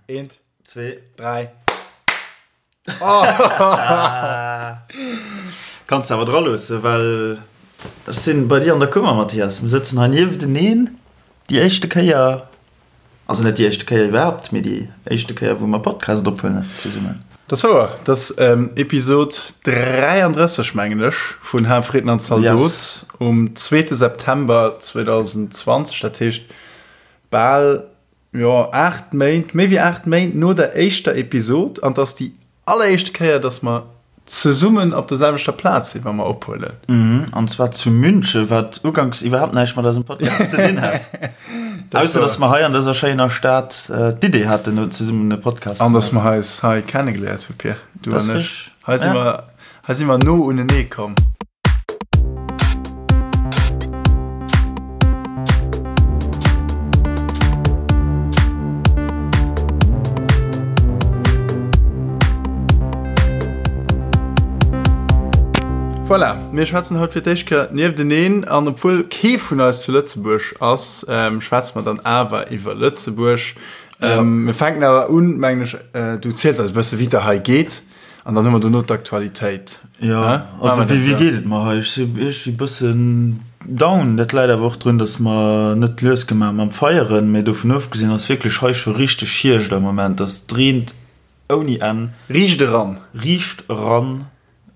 Eent, Zwee. dräi. Kanns de awer dra loossen, well ech sinn bei dir an der Kummer, Mathias. Mir sëtzen hei niefteneen, déi éischte Kéier, also net déi éischte Kéier iwwerhaapt, mee déi éischte Kéier, wou mer Podcast ophuelen zesummen. Dat ass wouer. Dat ass Episod 33, mengen ech, vun Hal Fridden an Zaldot Yes. um zweete September 2020. Dat heescht bal Jo, 8 Méint, méi wéi 8 Méint no der éischter Episod an 't ass déi alleréischte Kéier, dass mer zesummen op der selwechter Plaz sinn, wa mer ophuelen. Mhm, an zwar zu München, wat uganks iwwerhaapt näischt mat eisem Podcast ze dinn hat. Ausser dass mer hei an dëser schéiner Stad d'Idee haten, zesummen e Podcast ze maachen. An dass mer eis hei kennegeléiert hu, Pir, du an ech. Hei si mer, hei si mer no unenee komm. Voilà, mir schwätzen haut fir d'éischt Kéier niefteneen an obwuel kee vun eis zu Lëtzebuerg ass, schwätze mer dann awer iwwer Lëtzebuerg. Mir fänken awer un, mengen ech, du ziels eis e bësse wéi et der hei geet. An dann hu mer dono d'Aktualitéit. Jo, also wéi geet et mer hei? Ech si iergendwéi bëssen down. Dat läit awer och drun, datt mer net lues gemaach mam Feieren. Mee dovun ofgesinn ass wierklech hei scho richteg Hierscht am Moment. Et reent ouni Enn. Riicht eran. Riicht eran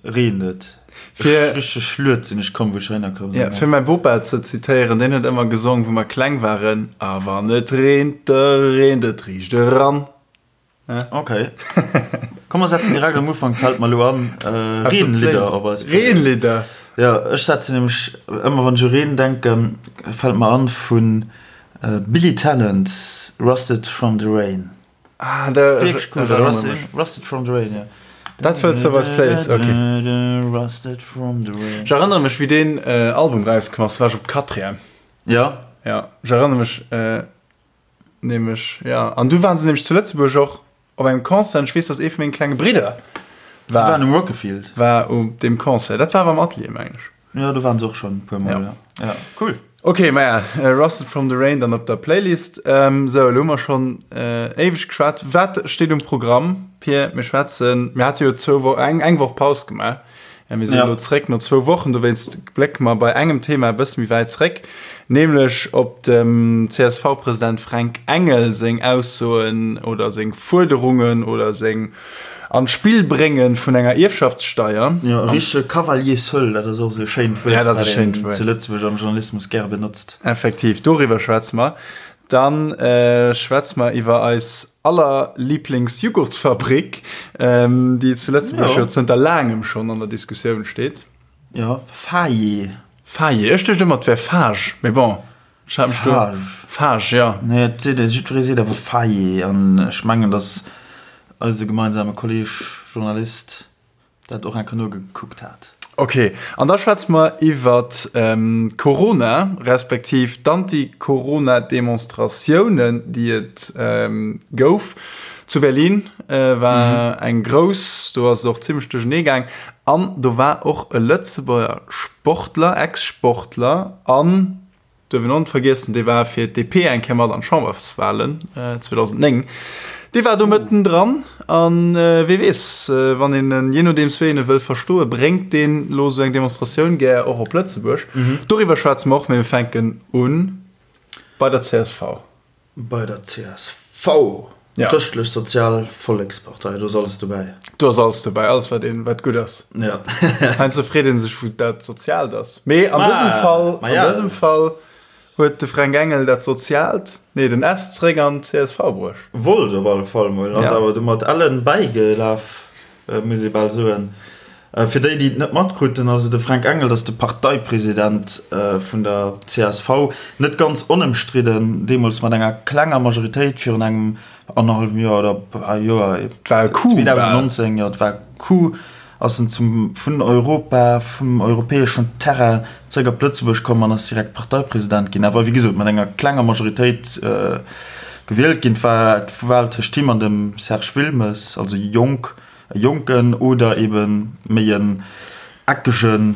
reent et. Fir. Richteg schluet sinn ech komm, wou ech heihinner komm sinn. Jo, fir mäi Bopa ze zitéieren, deen huet ëmmer gesong, wou mer kleng waren, A wann et reent, da reent et riicht eran. Ok. Komm mer setzen direkt am Ufank, fällt mer elo an, Reenlidder op eis Playlist. Reenlidder? Jo, ech setzen nämlech ëmmer wann ech u Reen denken, fällt mer an vun Billy Talent, Rusted from the Rain. Ah, da Wierklech cool, ech erënnere mech. Rusted from the Rain, jo. Dat wëlls de op eis Playlist, ok. Rusted from the Rain. Ech erënnere mech wéi deen Album rauskomm ass, war ech op Quatrième. Jo. Jo, ech erënnere mech. Nämlech, ja. An du waren se nämlech zu Lëtzebuerg och op engem Concert. An ech weess, dass ee vu menge klenge Bridder Se war, waren um Rockefield. war op deem Concert. Dat war awer am Atelier, mengen ech. Jo, do waren se och schonn e puer Mol, Ja. ja. Ja, cool. Ok, maja, Rusted from the Rain dann op der Playlist. Sou, elo hu mer schonn éiweg geschwat. Wat steet um Programm, Pir? Mir schwätzen, mir hate jo zwou Wo-, eng, eng Woch Paus gemaach. Ja, mir sinn elo zréck no zwou Wochen, dowéinst blécke mer bei engem Thema e bësse méi wäit zréck, nämlech op dem CSV-President Fränk Engel seng Aussoen oder seng Fuerderungen oder seng an d'Spill brénge vun enger Ierfschaftssteier. Jo, e richtege Cavalier seul, dat ass och esou e schéint Wuert, Ja, dat ass e wat schéint een Wuert. zu Lëtzebuerg am Journalismus gäre benotzt. Effektiv, doriwwer schwätze mer. Dann schwätze mer iwwer eis aller Lieblingsjugurtsfabrik, déi zu Lëtzebuerg jo zënter laangem schonn an der Diskussioun steet. Jo, Faye. Faye, ech duecht ëmmer et wär Fage, mee bon, ech hat mech do. Fage. Fage, jo. Nee, et seet, jiddweree seet awer Faye an ech mengen, datt eise gemeinsame Kolleeg Journalist dat och eng Kéier nogekuckt hat. Ok, an da schwätze mer iwwer Corona, respektiv d'Anti-Corona-Demonstratiounen, déi et gouf. Zu Berlin war eng grouss, do ass et och zimmlech duerchernee gaang. An do war och e Lëtzebuerger Sportler, Ex-Sportler an Duerf een och net vergiessen, dee war fir d'DP eng Kéier mat an d'Chamberswalen 2009. Dee war do mëtten dran an wee weess, wann een en, jee nodeems wéi een e wëll verstoen, bréngt deen elo esou eng Demonstratioun gär och op Lëtzebuerg. Doriwwer schwätze mer och, mee mir fänken u bei der csv. Bei der csv, Chrëschtlech Sozial Vollekspartei, do ass alles dobäi. Do ass alles dobäi, alles wat een, wat gutt ass. Ja. Heiansdo freet een sech wou dat Soziaalt ass. Mee an dësem Fall, an dësem Fall huet de Fränk Engel dat Soziaalt, nee den S zeréck an d'CSV bruecht. Wollt op alle Fall mol, ass awer du mat Ellen bäigelaf. Muss ee bal soen. Fir déi, déi et net matkruten, also de Fränk Engel, dat ass de Parteipresident vun der csv, net ganz onëmstridden, deemools mat enger klenger Majoritéit virun engem annerhallwem Joer oder Joer, Et war e Coup bal. 2019, jo, et war e Coup, ass en zum, vun Europa, vum europäeschen Terrain zréck op Lëtzebuerg komm an ass direkt Parteipresident ginn, awer wéi gesot mat enger klenger Majoritéit gewielt ginn. Et war d'Wal tëscht him an dem Serge Wilmes, also jonk, e Jonken oder ebe méi en eckege.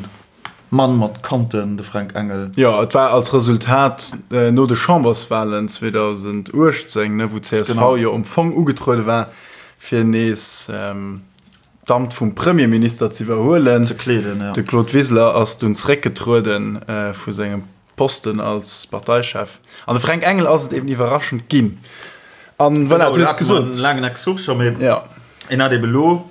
Mann mat Kanten, de Fränk Engel. Jo, et war als Resultat no de Chamberswalen 2018, ne, wou d'CSV jo am Fong ugetruede war, fir nees d'Amt vum Premierminister ze iwwerhuelen. Ze kleeden, jo. De Claude Wiseler ass dunn zeréckgetrueden vu sengem Posten als Parteichef. An de Fränk Engel ass et eben iwwerraschend ginn. An voilà, du hues et gesot. En laangen Exkurs scho, mee en hat eben elo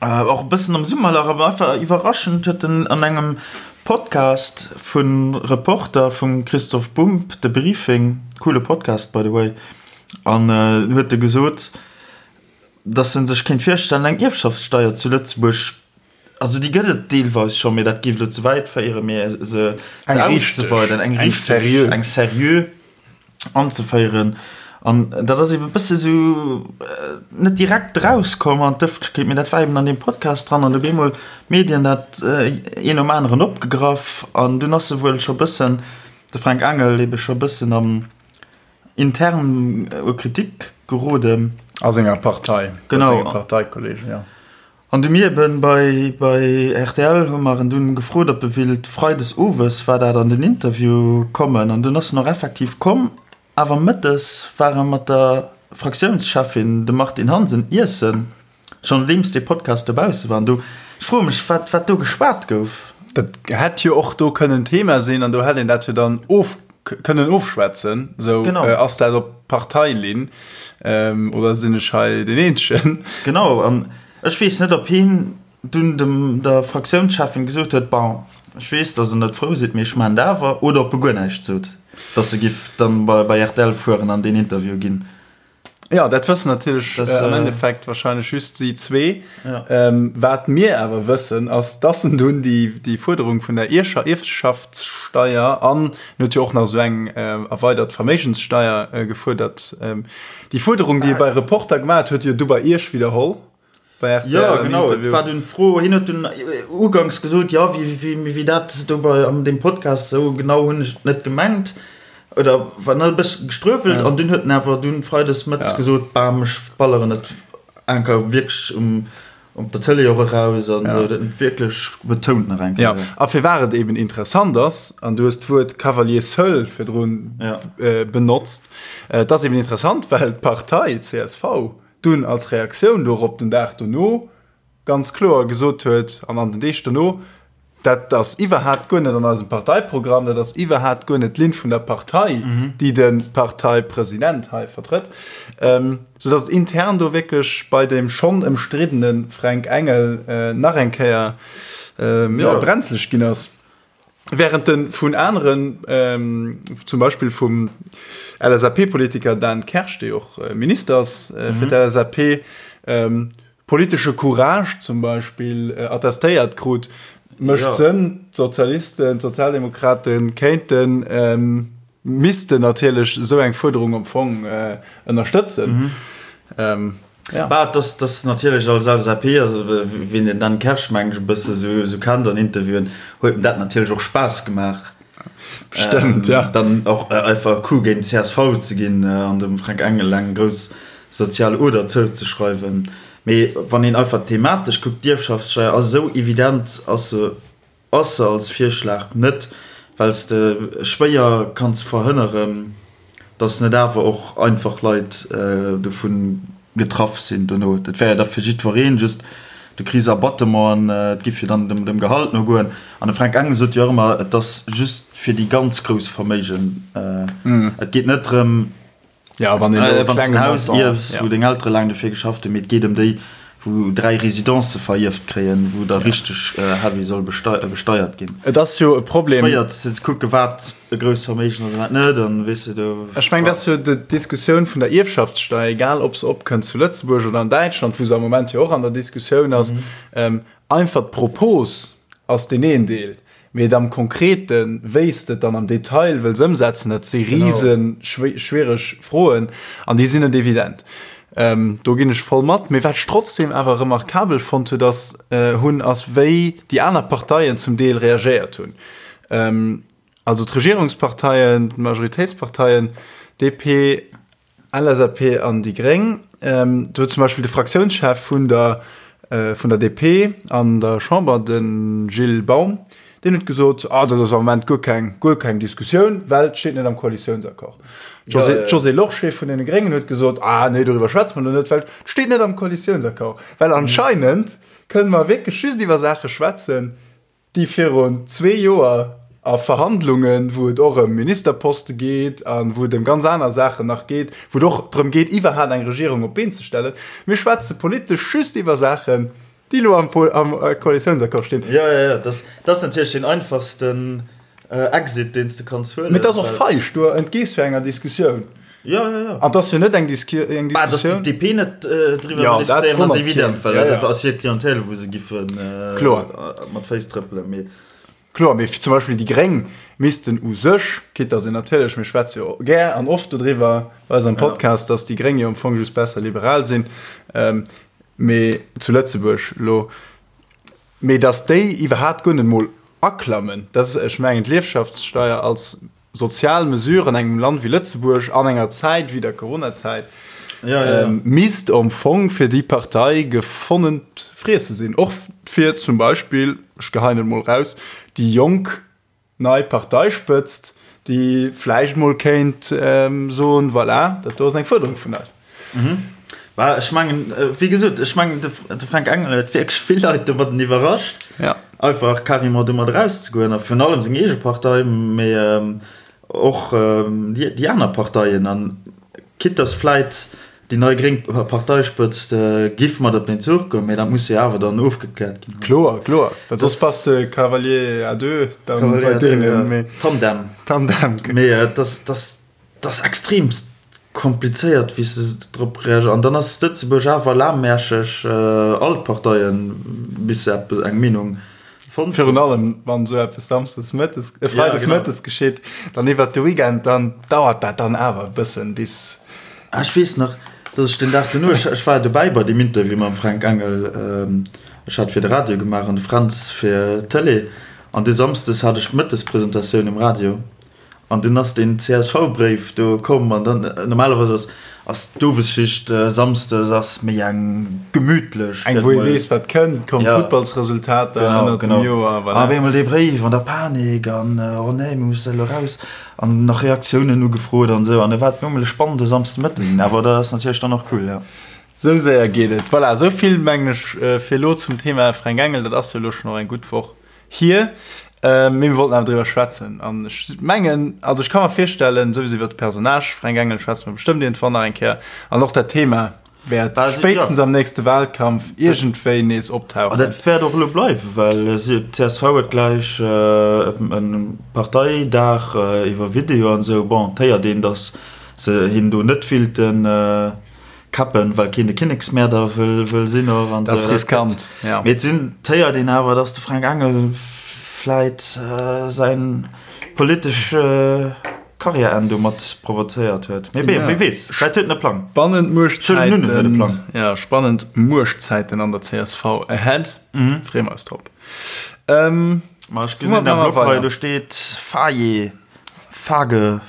och e bëssen am Summerlach, awer einfach iwwerraschend huet en an engem Podcast vu Reporter vum Christoph Bumb, de Briefing, coole Podcast by the way, an huet e gesot, datt en sech kéint virstellen eng Ierfschaftssteier zu Lëtzebuerg, also déi gëtt et deelweis scho, mee dat géif elo ze wäit féieren, mee se auszeweiden, eng richteg, eng seriö anzeféieren. An dat ass eben e bësse sou net direkt erauskomm an d'Ëffentlechkeet, mee dat war eben an deem Podcast dran an op eemol d'Medien dat een nom aneren opgegraff an dunn ass e wuel scho bëssen, de Fränk Engel ebe scho bëssen am intern u Kritik geroden. A senger Partei, bei senge Parteikollegen, jo. An du mir eben bei bei rtl hu mer en dunn gefrot, ob e willt freides owes war dat an den Interview kommen. An dunn ass en och effektiv komm, awer mëttes war e mat der Fraktiounscheffin, dem Martine Hansen, iessen, schonn nodeems dee Podcast dobausse war. An do, ech froe mech, wat wat do geschwat gouf. Dat hätt jo och do kënnen Thema sinn an do hätt een dat jo dann of kënnen ofschwätzen. Sou, Genau. ass dat op Parteilinn oder sinn ech hei deen Eenzegen? Genau, an ech weess net, ob hien dunn dem der Fraktiounscheffin gesot huet, Bon, ech weess, datt Der net frou sidd, mee ech maachen et awer, oder ob e guer näischt sot, datt e giff dann bei bei rtl fueren an deen Interview ginn. Ja, dat wëssen natierlech das, äh, am Endeffekt wahrscheinlech just si zwee. Ja. Ähm, wat mir awer wëssen, ass, dass en dunn déi, déi Fuerderung vun der Ierscher Ierfschaftssteier an en huet jo och nach esou eng äh, erweidert Verméigenssteier äh, gefuerdert. Ähm, déi Fuerderung, déi e bei Reporter gemaach huet, huet jo du bei Iech widderholl. Bei RTL ja, genau. Et war dunn d'Fro, hien huet dunn uganks gesot, ja, wéi, wéi, wéi dat do bei an deem Podcast esou genau hunn ech et net gemengt. Oder war nach e bësse gestruewelt ja. an dunn huet en awer dunn freides mëttes ja. gesot, bam, ech balleren et enker wierklech um op der Tëlee och eraus an ja. sou, dat huet wierklech betount nach eng Kéier. Ja, a firwat et eben interessant ass, an du hues d'Wuert Cavalier seul virdrun ja. äh, benotzt, äh, et ass eben interessant, well d'Partei csv dunn als Reaktioun dorop den Dag dono ganz kloer gesot huet, an an den Deeg dono, dat ass iwwerhaapt guer net an eisem Parteiprogramm, dat ass iwwerhaapt guer net d'Linn vun der Partei, déi de Parteipresident hei vertrëtt, soudass et intern do wierklech bei dem schonn ëmstriddene Fränk Engel nach eng Kéier, jo, brenzleg ginn ass. Während en vun aneren, zum Beispill vum LSAP-Politiker Dan Kersch, dee och Minister ass fir d'LSAP, politesche Courage zum Beispill attestéiert krut, mécht Sënn, d'Sozialisten, d'Sozialdemokrate kéinten, missten natierlech esou eng Fuerderung am Fong ënnerstëtzen. Ja. Bah, dass dass natierlech als LSAP, also wien den Dan Kersch meng ech e bësse sou sou kennt an Interviewen, huet em dat natierlech och Spaass gemaach. Bestëmmt, ja. Dann och einfach e Coup géint d'CSV ze ginn an dem Fränk Engel eng grouss sozial Oder zouzeschreiwen. Mee wann een einfach thematesch kuckt, d'Ierfschaftssteier ass esou evident, ass se Ass se als Virschlag net, well s de schwéier kanns verhënneren, datt net awer och einfach Leit dovun getraff sinn dono. Dat wär jo da fir jiddwereen, just du kriss Abattement an et giff jo dann dem Gehalt no goen. An de Fränk Engel sot jo och ëmmer, et ass just fir déi ganz grouss Verméigen. Et geet net drëm, Ja, wann een äh, wann en Haus ierfs, ja. wou deng Eltere laang dofir geschafft hunn, mee et geet ëm déi, wou 3 Residencë verierft kréien, wou da ja. richteg äh, heavy soll bestei äh, besteiert ginn. Et ass jo e Problem. Schwéier ze kucke wat e grousst Verméigen ass a wat net, an weess de do. Ech meng, dat ass jo d'Diskussioun vun der Ierfschaftssteier, egal ob se opkënnt zu Lëtzebuerg oder an Däitschland, wou se am Moment jo och an der Diskussioun ass. Mhm. Ähm, einfach d'Propos ass deen een Deel. Mee et am Konkreten, wéi s de et dann am Detail wëlls ëmsetzen, dat si rise schwiereg Froen an déi sinn net evident. Do ginn ech voll mat. Mee wat ech trotzdem awer remarkabel fonnt huet ass, hunn, ass wéi déi aner Parteien zum Deel reagéiert hunn. Also d'Regierungsparteien, d'Majoritéitsparteien, DP, LSAP an déi Gréng. Do huet zum Beispill de Fraktiounschef vun der. vun der DP an der Chamber, de Gilles Baum, deen huet gesot, ah dat ass am Moment guer keng, guer keng Diskussioun, well et steet net am Koalitiounsaccord. D'Josée Lorsché vun deene Gréngen huet gesot, ah nee, doriwwer schwätze mer elo net, well et steet net am Koalitiounsaccord. Well anscheinend kënne mer wierklech just iwwer Saache schwätzen, déi virun zwee Joer a Verhandlungen, wou et och ëm Ministerposte geet a wou et ëm ganz aner Saachen nach geet, wou et och drëm geet, iwwerhaapt eng Regierung op d'Been ze stellen. Mir schwätze politesch just iwwer Saachen, déi elo am Koalitiounsaccord stinn. Jo, jo, jo, dat ass natierlech deen einfachsten Exit, deen s de kanns huelen. Mee et ass och feig, du entgees jo enger Diskussioun. Jo, jo, jo. An et ass jo net eng Diskussioun. Bah, datt d'DP net driwwer wëll diskutéieren, ass evident, well dat ass hir Clientèle, wou se giffe mat Féiss trëppelen. Mee. Kloer, mee zum Beispill déi Gréng missten u sech, quitte datt een natierlech, mir schwätze jo gär an oft dodriwwer bei eis am Podcast, datt déi Gréng jo am Fong just besser liberal sinn, mee zu Lëtzebuerg elo, Mee datt déi iwwerhaapt guer net mol aklammen, dat ass, ech mengen, d'Liefschaftssteier als sozial Mesure an engem Land wéi Lëtzebuerg an enger Zäit wéi der Coronazäit, misst am Fong fir déi Partei gefonnent Friesse sinn. Och fir zum Beispill, ech geheien et mol raus, déi Jonk, nei Parteispëtzt, déi vläicht mol kéint soen, voilà, dat do ass eng Fuerderung vun eis. Bah, ech mengen, wéi gesot, ech mengen, de Fränk Engel huet wierklech vill Leit domadden iwwerrascht, einfach carrément domat erauszegoen, a virun allem seng eege Partei, mee och déi aner Parteien. An quitte dass vläit Déi nei gréng Parteispëtzt giff mat op den Zuch goen, mee dat muss jo awer dann ofgekläert ginn. Kloer, kloer, well soss bass de Cavalier à deux dann bei deenen, mee. Tandem. Tandem. Mee et ass, et ass extremst komplizéiert, wéi se drop reagéieren. An dann ass Lëtzebuerg awer lahmärscheg, all d'Parteien, bis se eppes, eng Meenung fonnt hunn. Virun allem, wann esou eppes samsdes mëttes, freides mëttes geschitt, dann iwwert de Weekend, dann dauert dat dann awer e bëssen, bis. Ah, ech weess nach, dass ech den Dag duerno, ech, ech war dobäi bei deem Interview mam Fränk Engel, ech hat fir de Radio gemaach an de Fränz fir d'Tëlee, an du samsdes hat ech d'Mëttespresentatioun um Radio an dunn ass deen CSV-Bréif do komm an dann, normalerweis ass, ass d'Owesschicht samsdes ass méi eng gemütlech. Eng, wou ee weess, wat kënnt, kommen d'Futtballsresultater ënnert dem Joer, voilà. An op eemol dee Bréif an der Panik an, oh nee, mir musse elo raus. An nach Reaktiounen ugefrot an esou. An et war normal e spannende Samsdemëtten ginn. Awer dat ass natierlech dann och cool, jo. Sou séier geet et. Voilà, esou vill mengen ech fir elo zum Thema Fränk Engel. Dat ass jo elo schonn och eng gutt Woch hier. Mee mir wollten awer driwwer schwätzen. An ech mengen, also ech ka mer virstellen, souwisou iwwer de Personnage Fränk Engel schwätze mer bestëmmt iergendwann nach eng Kéier. An och dat Thema wäert spéitstens am nächste Wahlkampf iergendwéi nees optauchen. An dat wäert och elo bleiwen, well d'CSV huet gläich e Parteidag iwwer Video an esou. Bon, et héiert een, datt se hien do net willte kappen, well keen de Kinneksmäerder wëll sinn och an esou. Dat ass riskant, jo. Mee et sinn, et héiert een awer, datt de Fränk Engel vläit säin politesch Karriärenn domat provozéiert huet. Mee bee, wie weess, vläit huet en e Plang. Spannend Muerchtzäiten, ja, spannend Muerchtzäiten an der csv ahead. Freeë mer eis drop. Ma ech gesinn am Blog hei, do steet Faye, Fage,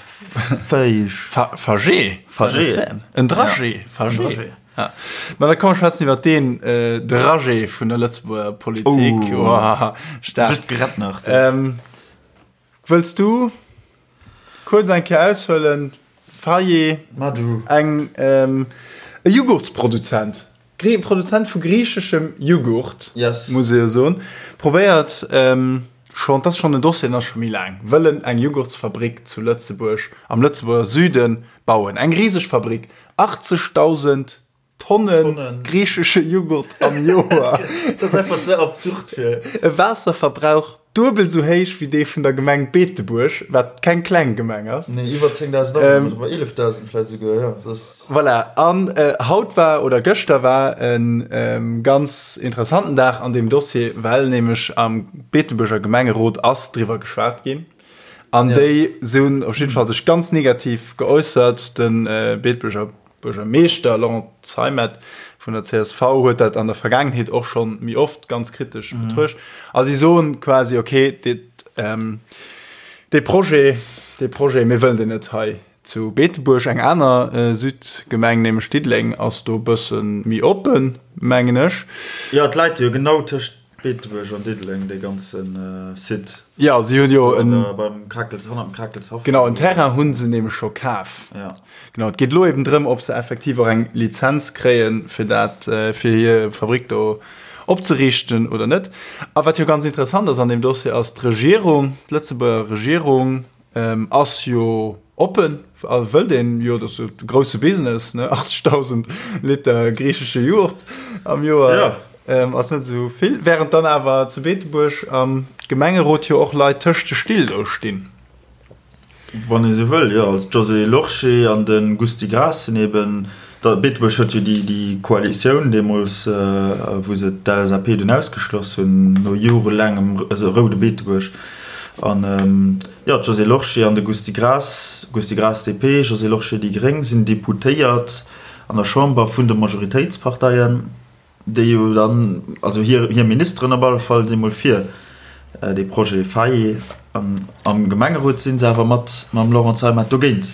Feig. Fagé. Fagé. En Dragé. Fagé. Ja. Ma da komm mer schwätzen iwwer deen Dragé vun der Lëtzebuerger Politik. Oh, staark. Just gerett nach. Wëlls du kuerz eng Kéier aushuelen? Faye, eng e Jughurtsproduzent, Produzent vu griicheschem Jughurt, muss ee jo soen, probéiert schonn, dat ass schonn en Dossier, deen ass scho méi laang, wëllen eng Jughurtsfabrik zu Lëtzebuerg, am Lëtzebuerger Süde bauen. Eng riseg Fabrik, 80.000 Tonnen griichesche Jughurt am Joer. Dat ass einfach ze absurd fir. E Waasserverbrauch duebel sou héich wéi dee vun der Gemeng Beetebuerg, wat keng kleng Gemeng ass. Nee, iwwer 10.000 Awunner, oder 11.000 vläicht esouguer, jo. Dat ass. Voilà, an haut war, oder gëschter war e ganz interessanten Dag an deem Dossier, well nämlech am Beetebuerger Gemengerot ass driwwer geschwat ginn. An déi hunn op jidde Fall sech ganz negativ geäussert. De Beetebuerger Buergermeeschter Laurent Zeimet vun der csv huet dat an der Vergaangenheet och schonn méi oft ganz kritesch betruecht. A si soen quasi, okay, dee Projet, dee Projet, mir wëllen deen net hei. Zu Beetebuerg, eng aner Südgemeng, nämlech Diddeleng, ass do e bësse méi oppen, mengen ech. Jo, et läit jo genau tëscht Beetebuerg an Diddeleng, dee ganze Site. Jo, si hunn jo en. Beim Krakels, hannert dem Krakelshaff. Genau, en Terrain hu se nämlech scho kaf. Jo. Genau, et geet elo eben drëm, ob se effektiv och eng Lizenz kréien, fir dat, fir hir Fabrick do opzeriichten oder net. A wat jo ganz interessant ass an deem Dossier, ass d'Regierung, d'Lëtzebuerger Regierung, Ass jo oppen a wëllt een jo, dat ass jo de grousse Business, ne, 80.000 Liter griichesche Jughurt am Joer ass net esou vill, während dann awer zu Beetebuerg am Gemengerot jo och Leit tëscht de Still do stinn. Wann ee sou wëll, jo. Also d'Josée Lorsché an de Gusty Graas sinn eben, Beetebuerg huet jo déi Koalitioun deemools, wou se d'LSAP dunn ausgeschloss hunn, no jorelaangem roude Beetebuerg. An jo, d'Josée Lorsché an de Gusty Graas, Gusty Graas DP, Josée Lorsché déi Gréng, sinn Deputéiert an der Chamber vun de Majoritéitsparteien, déi jo dann, also hir Ministeren op alle Fall si mol fir dee Projet Fayot. An am Gemengerot si se awer mat mam Laurent Zeimet dogéint.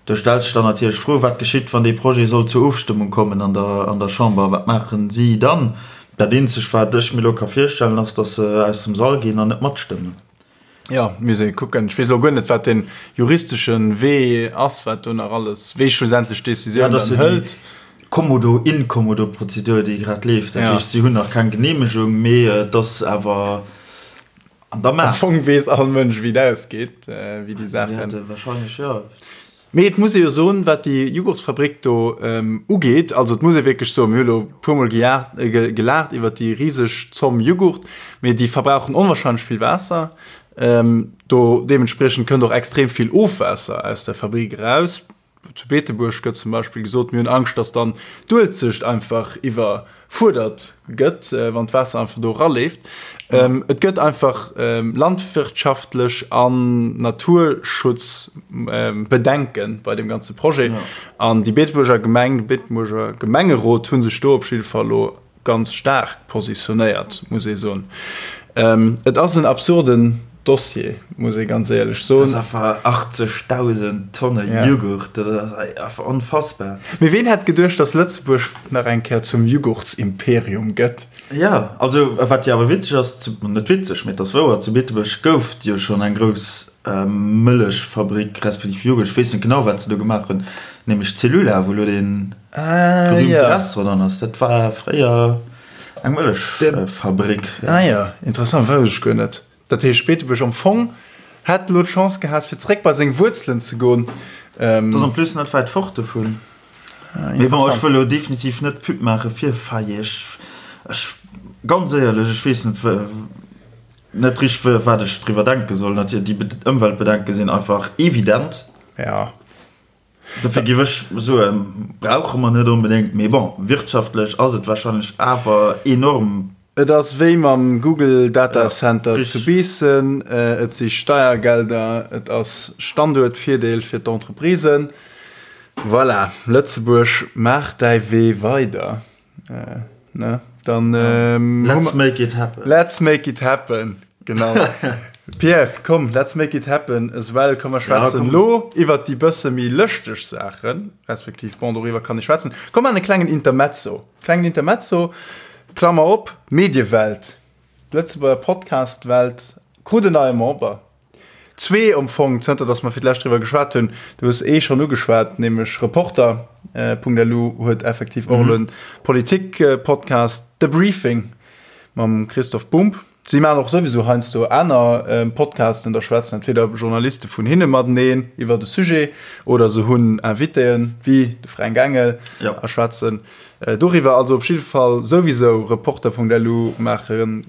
Do stellt sech dann natierlech d'Fro, Wat geschitt, wann dee Projet sollt zur Ofstëmmung kommen an der an der Chamber? Wat maachen si dann? Dat eenzegt, wat ech mir elo ka virstellen, ass, datt se aus dem Sall ginn an net matstëmmen. Jo, misst ee kucken. Ech weess elo guer net, wat dee juristesche Wee ass, wat do nach alles, wee schlussendlech d'Decisioun dann hëlt. Kommodo-Inkommodo-Prozedur, déi grad leeft. Dat heescht, si hunn nach keng Geneemegung, mee et ass awer An der Maach. Am Fong weess all Mënsch, wéi et ausgeet, wéi déi Saachen. Wahrscheinlech, jo. Mee et muss ee jo soen, wat déi Jughurtsfabrik do ugeet, also et muss ee wierklech soen, mir hu lo e puermol gelaacht iwwert déi riseg Zomm Jughurt, mee déi verbrauchen onwahrscheinlech vill Waasser. Do deementspriechend kënnt och extrem vill Ofwaasser aus der Fabrik eraus. Zu Beetebuerg gëtt zum Beispill gesot, mir hunn Angscht, datt dann d'Uelzecht einfach iwwerfuerdert gëtt, wann d'Waasser einfach do eraleeft. Et gëtt einfach landwirtschaftlech an Naturschutzbedenke bei deem ganze Projet. An déi Beetebuerger Gemeng, de Beetebuerger Gemengerot hu sech do op jidde Fall elo ganz staark positionéiert, muss ee soen. Et ass en absurden Dossier, muss ee ganz éierlech soen. Dat ass einfach 80.000 Tonne Jughurt, dat ass einfach onfassbar. Mee ween hätt geduecht, dass Lëtzebuerg nach eng Kéier zum Jughurtsimperium gëtt? Jo, also wat jo awer witzeg ass, net witzeg, mee et ass wouer, zu Beetebuerg gouf et jo schonn eng grouss Mëllechfabrik respektiv Jughurt, ech weess net genau, wat se do gemaach hunn, nämlech d'Cellula, wou elo dee berühmte Restaurant dran ass. Dat war fréier eng Mëllechfabrik. Ah jo, interessant, wousst ech guer net. Dat heescht, Beetebuerg am Fong hätt elo d'Chance gehat, fir zeréck bei seng Wuerzelen ze goen. Dat ass en plus net wäit fort dovun. Mee bon, ech wëll elo definitiv net Pub maache fir Faye. Ech, ech, ganz éierlech, ech weess net, net richteg, wat ech driwwer denke soll. Natierlech, déi Ëmweltbedenke sinn einfach evident. Ja. Dofir géif ech soen, brauche mer net onbedéngt, mee bon, wirtschaftlech ass et warscheinlech awer enorm. Et ass wéi mam Google Data Center zu Biissen, et si Steiergelder, et ass Standuertvirdeel fir d'Entreprisen. Voilà, Lëtzebuerg, maach däi Wee weider. Ne? Dann, ähm, Let's make it happen. Let's make it happen. Genau. Pierre, komm, let's make it happen as well. Komm, mer schwätzen ja, lo iwwer déi bësse méi lëschteg Saachen, respektiv, bon, doriwwer kann ich schwätzen. Komm an e klengen Intermezzo. Klengen Intermezzo, Klammer op, Mediewelt. D'Lëtzebuerger Podcast-Welt krut en neie Member. Zwee am Fong, zënter datt mer fir d'lescht driwwer geschwat hunn. Du hues ee schonn ugeschwat, nämlech Reporter. .lu huet effektiv och elo en Politik-Podcast, The Briefing mam Christoph Bumb. Si maachen och souwisou heiansdo aner Podcasten, da schwätzen entweder Journaliste vun hinne mateneen iwwer e Sujet oder se hunn Invitéen, wéi de Fränk Engel, a schwätzen doriwwer. Also op jidde Fall souwisou Reporter.lu maache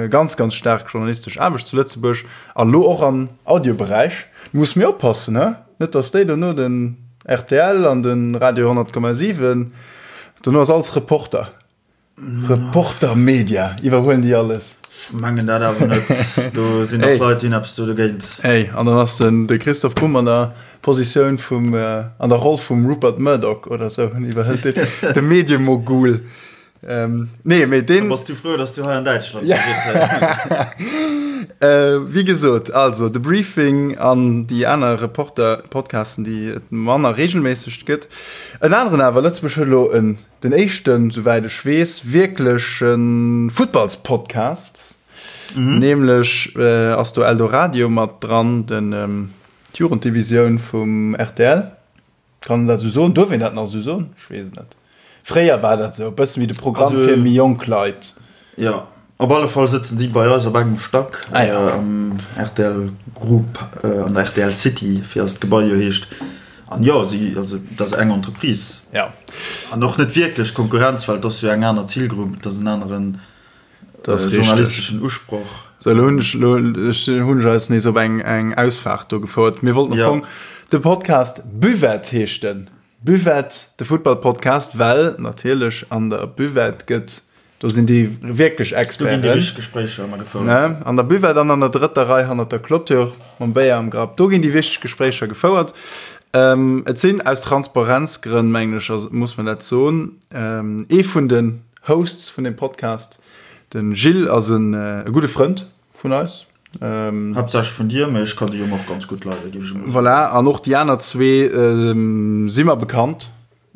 Ganz ganz staark journalistesch Aarbecht zu Lëtzebuerg an elo och am Audioberäich. Du muss méi oppassen, he? Net dass déi dono den rtl an de Radio 100,7, dono ass alles Reporter. Reporter Media iwwerhuelen déi alles. Mengen dat awer net. Do sinn och Leit, déi hunn eppes do dogéint. Ey, an dann ass den de Christoph Bumb an der Positioun vum, an der Roll vum Rupert Murdoch oder sou, en iwwerhëlt deen, de Mediemogul. Ähm, nee, mee deen. Da bass du frou, dass du hei an Däitschland ja. Wéi gesot, also de Briefing an déi aner Reporter-Podcasten, déi et manner reegelméisseg gëtt. En aneren awer, Lëtzebuerg huet elo en, den éischten, souwäit ech weess, wierkleche Futtballspodcast. Nämlech ass do Eldoradio mat dran, den, d'Jugenddivisioun vum rtl. Kann een dat esou soen? Duerf een dat nach esou soen? Ech weess et net. Fréier war dat esou e bëssen wéi de Programm fir méi jonk Leit. Jo, op alle Fall sëtzen déi bei eis op engem Stack am rtl Group, an der rtl City, wéi eist Gebai jo heescht. An jo, si, also dat ass eng Entreprise. Jo. An och net wierklech Konkurrenz, well et ass jo eng aner Zilgrupp, et ass en aneren. Das äh, journalisteschen Usproch. So, lo hunn ech, lo, ech hunn ech eis nees op eng, eng Ausfahrt do gefouert. Mir wollten am Fong de Podcast Buvette heescht den. Buvette, de Futtball-Podcast, well natierlech an der Buvette gëtt, do sinn déi wierklech Experten. Do ginn déi wichteg Gespréicher ëmmer gefouert. Ne? An der Buvette an an der drëtter Rei hannert der Clôture mam Béier am Grapp, do ginn déi wichteg Gespréicher gefouert. Ähm, et sinn aus Transparenzgrënn, mengen ech, muss man dat soen, ähm, ee vun den Hosts vun dem Podcast. Den Gilles ass en gudde Frënd vun eis. Haaptsächlech vun dir, mee ech kann de Jong och ganz gutt leiden, géif ech emol soen. Voilà, an och déi aner zwee si mer bekannt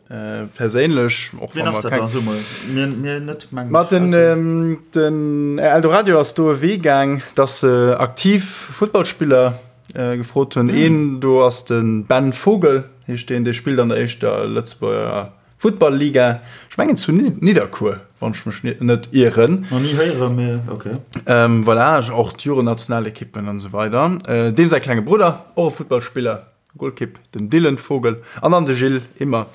perséinlech. Och Wien ass dat dann? So mol. Mir, mir net, meng ech. Ma den, den Eldoradio ass do e Wee gaang, dass se aktiv Futtballspiller gefrot hunn. Een do ass de Ben Vogel, heescht deen, dee spillt an der éischter Lëtzebuerger Futtball-Liga, ech mengen zu Nidderkuer, wann ech mech net ieren. Nach ni héieren, mee ok. Voilà, och d'Jugendnationalekippen an esou weider. Deem säi klenge Brudder, och e Futtballspiller, Golkipp, den Dylan Vogel an dann de Gilles Immer.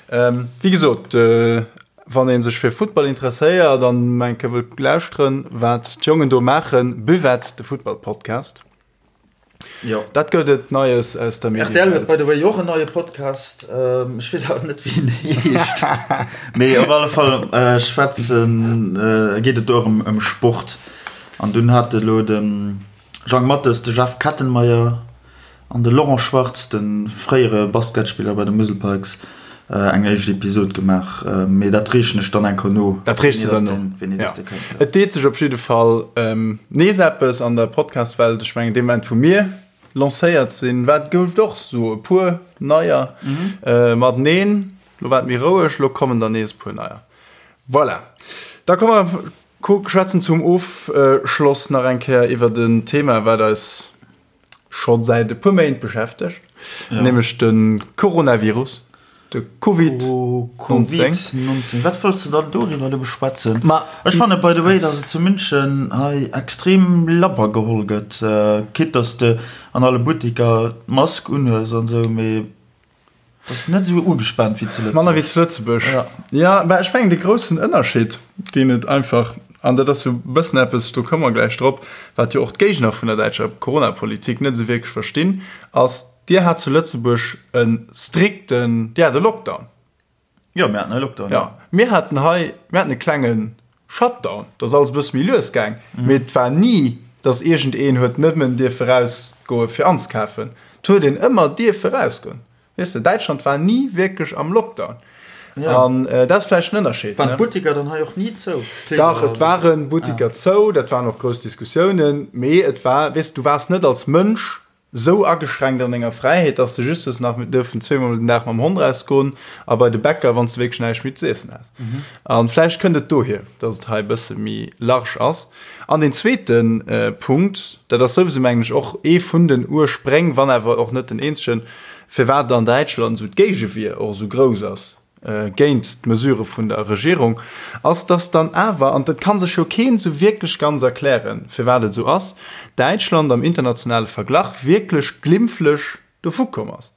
Wéi gesot, wann ee sech fir Futtball interesséiert an eng Kéier wëllt lauschteren, wat d'Jongen do maachen, Buvette, de Futtball-Podcast. Jo. Dat gëtt et Neies aus der Mediewelt. RTL huet by the way och en neie Podcast. Ech weess awer net wéi en heescht. Mee op alle Fall schwätzen, geet et do och ëm Sport. An dunn hat elo de Jang Mathes, de Jeff Kettenmeyer an de Laurent Schwartz, de fréiere Basketspiller bei de Musel Pikes, eng éischt Episod gemaach. Mee dat reechen ech dann eng Kéier no. Dat reechs de dann no. Wéini dass dee kënnt. Et deet sech op jidde Fall nees eppes an der Podcast-Welt. Ech mengen, dee Moment, wou mir lancéiert sinn, war, gouf et och esou e puer neier mateneen. Lo war et méi roueg, lo kommen der nees e puer neier. Voilà. Da komme mer schwätzen zum Ofschloss nach eng Kéier iwwert en Thema, wat eis scho säit e puer Méint beschäftegt, ja. nämlech de Coronavirus, de Covid-19. Covid-19. Wat wollts de dann doriwwer elo beschwätzen? Ma ech fanne by the way, dass et zu München hei extrem labber geholl gëtt, quitte dass de an alle Buttiker d'Mask unhues an esou, mee Dat ass net esou ugespaant wéi zu Lëtzebuerg. Manner wéi zu Lëtzebuerg. Ja, ja mä ech mengen de groussen Ënnerscheed, deen et einfach, an dat ass jo e bëssen eppes, do komme mer gläich drop, wat jo och d'Géigner vun der däitscher Coronapolitik net esou wierklech verstinn, ass, Dir hat zu Lëtzebuerg e strikten, Dir hat e Lockdown. Jo, mir haten e Lockdown. Ja, mir haten hei, mir haten e klenge Shutdown, do ass alles e bësse méi lues gaang, mee et war ni, datt iergendeen huet nëmmen dierfe rausgoe fir anzekafen. Et huet een ëmmer dierfe rausgoen. Weess de, Däitschland war ni wierklech am Lockdown. An dat ass vläicht en Ënnerscheed. Waren d'Butteker dann hei och ni zou? Dach, et ware Butteker zou, dat waren och grouss Diskussiounen, mee et war, weess de, du waars net als Mënsch sou ageschränkt an denger Fräiheet, dass de just hues nach dürfen zweemol den Dag mam Hond rausgoen a bei de Bäcker, wann s de wierklech näischt méi z'iessen has. An vläicht kënnt et dohier, dass et hei e bësse méi large ass. An deen zweete Punkt, dat ass souwisou, mengen ech, och ee vun den Urspréng, wann awer och net den eenzegen, firwat an Däitschland esou d'Géigewier och esou grouss ass, géint d'Mesurë vun der Regierung, ass, dass dann awer, an dat ka sech jo keen esou wierklech ganz erklären, firwat et esou ass, Däitschland am internationale Verglach wierklech glimpflech dovukomm ass.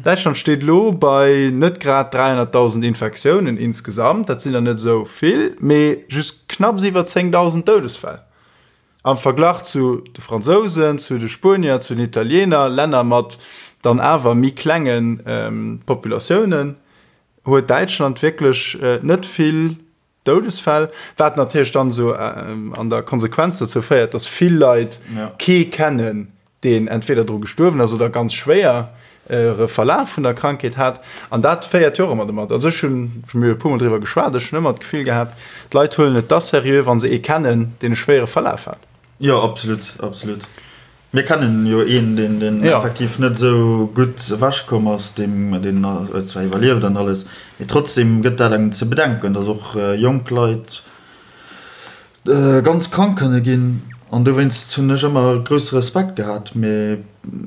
Däitschland steet elo bei net grad 300.000 Infektiounen insgesamt, dat sinn der net esou vill, mee just knapps iwwer 10.000 Doudesfäll. Am Verglach zu de Fransousen, zu de Spuenier, zu den Italiener, Länner mat dann awer méi klenge Populatiounen, huet Däitschland wierklech net vill Doudesfäll, wat natierlech dann esou an der Konsequenz dozou féiert, datt vill Leit kee kennen, deen entweder dru gestuerwen ass oder ganz schwéiere Verlaf vun der Krankheet hat. An dat féiert jo och ëmmer domat. Also ech hunn, ech hu jo e puermol driwwer geschwat, ech hunn ëmmer d'Gefill gehat, d'Leit huelen et da seriö, wa se ee kennen, deen e schwéiere Verlaf hat. Jo, absolut, absolut. Mir kennen jo een, deen, deen ja. effektiv net esou gutt ewechkomm ass, deem, deen huet zwar iwwerlieft an alles, mee trotzdem gëtt dat engem ze bedenken, dass och jonk Leit ganz krank kënne ginn. An dowéinst hunn ech ëmmer grousse Respekt gehat. Mee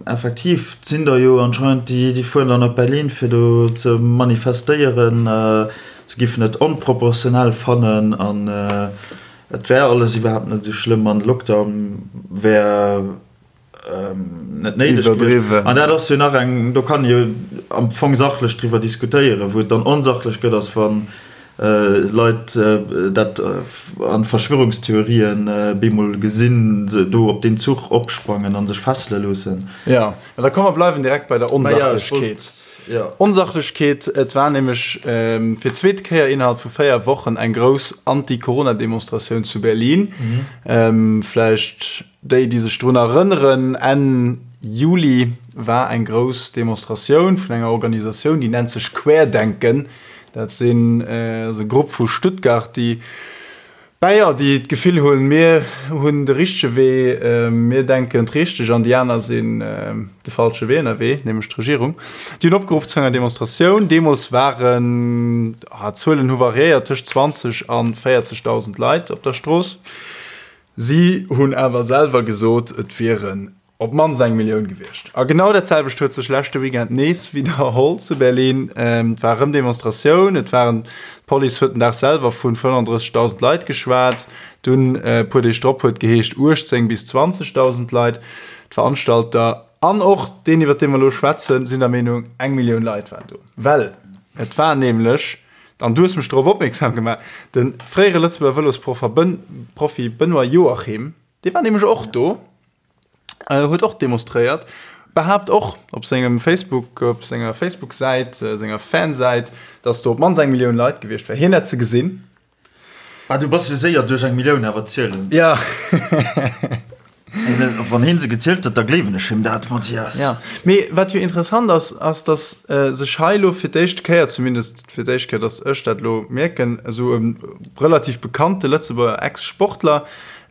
effektiv, et sinn der jo anscheinend, déi, déi fueren dann op Berlin, fir do ze manifestéieren. Se giffen et onproportionell fannen an Et wär alles iwwerhaapt net esou schlëmm an de Lockdown wär net néideg gewiescht. An dat ass jo nach eng, do kann ee jo am Fong sachlech driwwer diskutéieren. Wou et dann onsachlech gëtt, ass wa Leit dat a Verschwörungstheorien bemol gesinn, se do op deen Zuch opsprangen a sech fessele loossen. Jo, mä da komm mer bleiwen direkt bei der Onsachlechkeet. Onsachlechkeet, Et war nämlech fir d'zweet Kéier innerhalb vu 4 Wochen eng grouss Anti-Corona-Demonstratioun zu Berlin. Vläicht déi, déi sech drun erënneren, Enn Juli war eng grouss Demonstratioun vun enger Organisatioun, déi nennt sech Querdenken. Dat sinn e Grupp vu Stuttgart, déi Bäier, déi d'Gefill hunn, mir hunn de richtege Wee, mir denken d'richteg an déi aner sinn de falsche Wee ënnerwee, nämlech d'Regierung. Déi hunn opgeruff zu enger Demonstratioun. Deemools waren, d'Zuelen hu variéiert, tëscht 20 a 40.000 Leit op der Strooss. Si hunn awer selwer gesot, et wieren Op d'mannst eng Millioun gewiescht. A genau dat selwecht huet sech leschte Weekend nees widderholl zu Berlin. Et war erëm Demonstratioun, et waren, d'Police huet den Dag selwer vun 35.000 Leit geschwat, dunn e puer Deeg drop huet geheescht 18 bis 20.000 Leit. D'Veranstalter an och deen iwwer dee mer elo schwätzen, sinn der Meenung, eng Millioun Leit waren do. Well et war nämlech, an du hues mech dorop opmierksam gemaach, de fréiere Lëtzebuerger Vëlosprofi Benoît Joachim, dee war nämlech och do. huet och demonstréiert, behaapt och op sengem Facebook, op senger Facebook-Säit, senger Fansäit, datt do op d'mannst eng Millioun Leit gewiescht wär. Hien hätt se gesinn. Ah, du bass jo séier duerch eng Millioun awer zielen. Ja. Wann hien se gezielt huet, da gleewen ech him dat, Mathias. Ja, mee wat jo interessant ass, ass datt sech hei elo fir d'éischt Kéier, zumindest fir d'éischt Kéier, datt ech dat elo mierken, esou e relativ bekannte Lëtzebuerger Ex-Sportler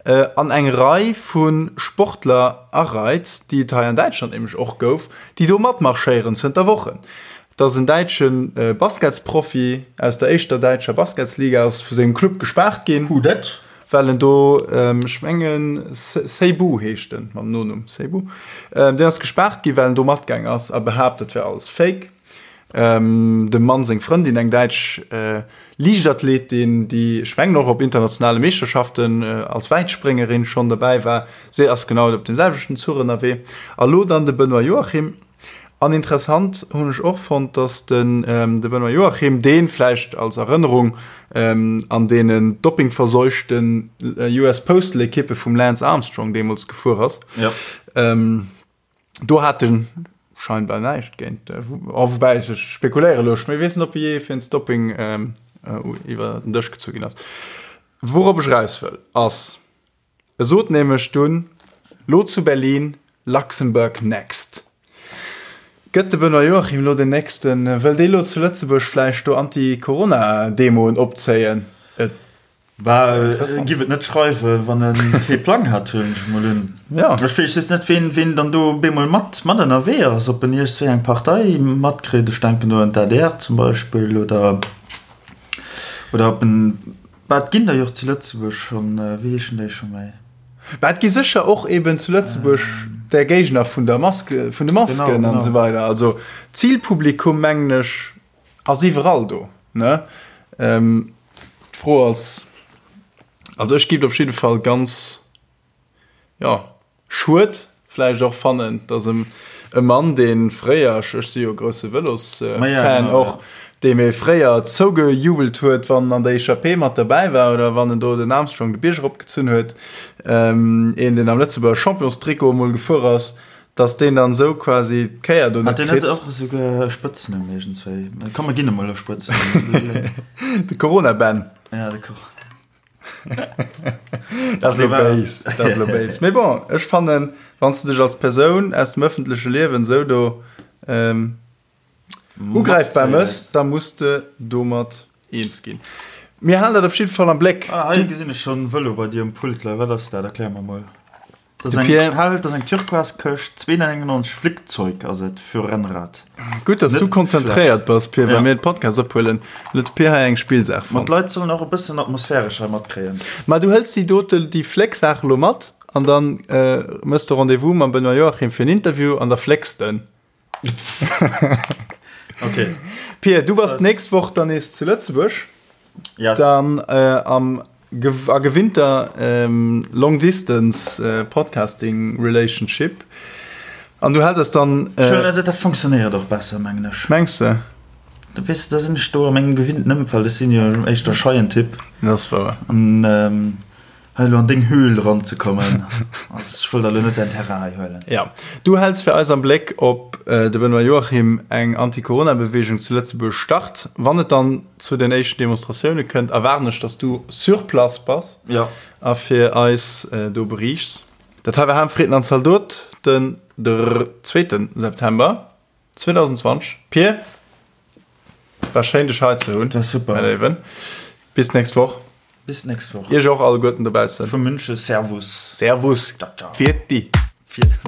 An eng Rei vu Sportler areit, déi et hei an Däitschland nämlech och gouf, déi do matmarschéieren zënter Wochen. Et ass en däitsche Basketsprofi aus der éischter däitscher Basketsliga ass vu sengem Club gespaart ginn. Who dat? Well en do, ech mengen Seybu heescht en mam Nonumm, Seybu, deen ass gespaart ginn, well en do matgaang ass a behaapt, et wär alles Fake. Dem Mann seng Frëndin, eng däitsch Liichtathletin, déi ech mengen och op internationale Meeschterschaften als Wäitspréngerin schonn dobäi war, si ass genau op deem selwechten Zuch ënnerwee. A lo dann de Benoît Joachim. An interessant hunn ech och fonnt, datt den de Benoît Joachim, dee vläicht als Erënnerung an deenen doppingverseuchten US Postal Ekippe vum Lance Armstrong deemools gefuer ass, Do hat en scheinbar näischt géint, oh, woubäi ech spekuléiere elo, ech weess net, ob jee wéinst Doping iwwer den Dësch gezu ginn ass. Wourop ech eraus wëll, ass, e sot nämlech dunn, lo zu Berlin, Luxembourg next. Gëtt de Benoît Joachim elo den nächsten, wëll dee lo zu Lëtzebuerg vläicht do Anti-Corona-Demoen opzéien? Et Bah, e giff et net schreiwen, wann e kee Plang hätt, huelen ech mol un. Ja. Ech weess just net, ween, ween dann do bemol mat, mat ënnerwee ass, ob en iergendswéi eng Partei matkritt, ech denken do un d'ADR zum Beispill, oder, oder ob en, bah, et ginn der jo och zu Lëtzebuerg schonn, wéi heeschen déi scho méi? Bah, et gi sécher och eben zu Lëtzebuerg där Géigner vun der Maske, vun de Masken an esou weider. Also d'Zilpublikum, mengen ech, Ass iwwerall do, ne? D'Fro ass, also ech giff et op jidde Fall ganz, jo, schued vläicht och fannen, datt e Mann, dee fréier, ech si jo grousse Vëlosfan och, dee mir fréier zougejubelt huet, wann en an der Echappée mat derbäi war oder wann en do den Armstrong de Bierg eropgezunn huet, een, deen am Lëtzebuerger Championstrikot emol gefuer ass, Dass deen dann esou quasi d'Kéier do net kritt. Hat deen net och esouguer e Spëtznumm iergendswéi? Komm mer ginn em mol e Spëtznumm. De Corona-Ben. Ja, de Cor. Dat ass elo béis, dat ass elo béis. Mee bon, ech fannen, wann s de dech als Persoun aus dem ëffentleche Liewen esou do ugräifbar mëss, da muss de domat eens ginn. Mir halen dat op jidde Fall am Bléck. Ah, hei gesinn ech schonn Vëlo bei dir um Pult leien. Wat ass dat? Erklär mer mol. Dat ass eng Pierre. hell, dat ass eng turquoise Këscht, 2,99 Flickzeug ass et fir Rennrad. Gutt, dass Net du konzentréiert bass, Pir, wa Ja. mir de Podcast ophuelen. Huet de Pir hei eng Spillsaach Ma fonnt. d'Leit sollen och e bëssen atmosphäresch hei matkréien. Ma du hëls déi dote, déi Flécksaach elo mat an dann äh, mëss de Rendez-vous mam Benoît Joachim fir en Interview an da flécks de. Okay. Pir, du bass d'nächst Woch dann nees zu Lëtzebuerg. Yes. Dann äh, am a gewinnter ähm, Long Distance äh, Podcasting Relationship. An du häls eis dann. Äh, Schön, dat, dat funktionéiert och besser, mengen ech. Mengs de? Du weess, da sinn ech do a mengem gewinnten Ëmfeld. Ech sinn jo éischter scheien Typ. Dat ass wouer. An ähm, hei elo an deng Höhl eranzekommen, ass, ech wëll der elo net däin Terrain hei huelen. Ja, du häls fir eis am Bléck, ob de Benoît Joachim eng Anti-Corona-Beweegung zu Lëtzebuerg start. Wann et dann zu den éischten Demonstratioune kënnt, erwaarden ech, dass du sur place bass Ja. a fir eis do beriichts. Dat hei war Ham, Fritten an Zaldot den zweeten September 2020. Pir, war schéin dech hei ze hunn. War super. Mäi Léiwen. Bis d'nächst Woch. Bis d'nächst Woch. Iech och alleguerten dobaussen. Vu München, Servus. Servus. Ciao, ciao. Pfiat di. Pfiat.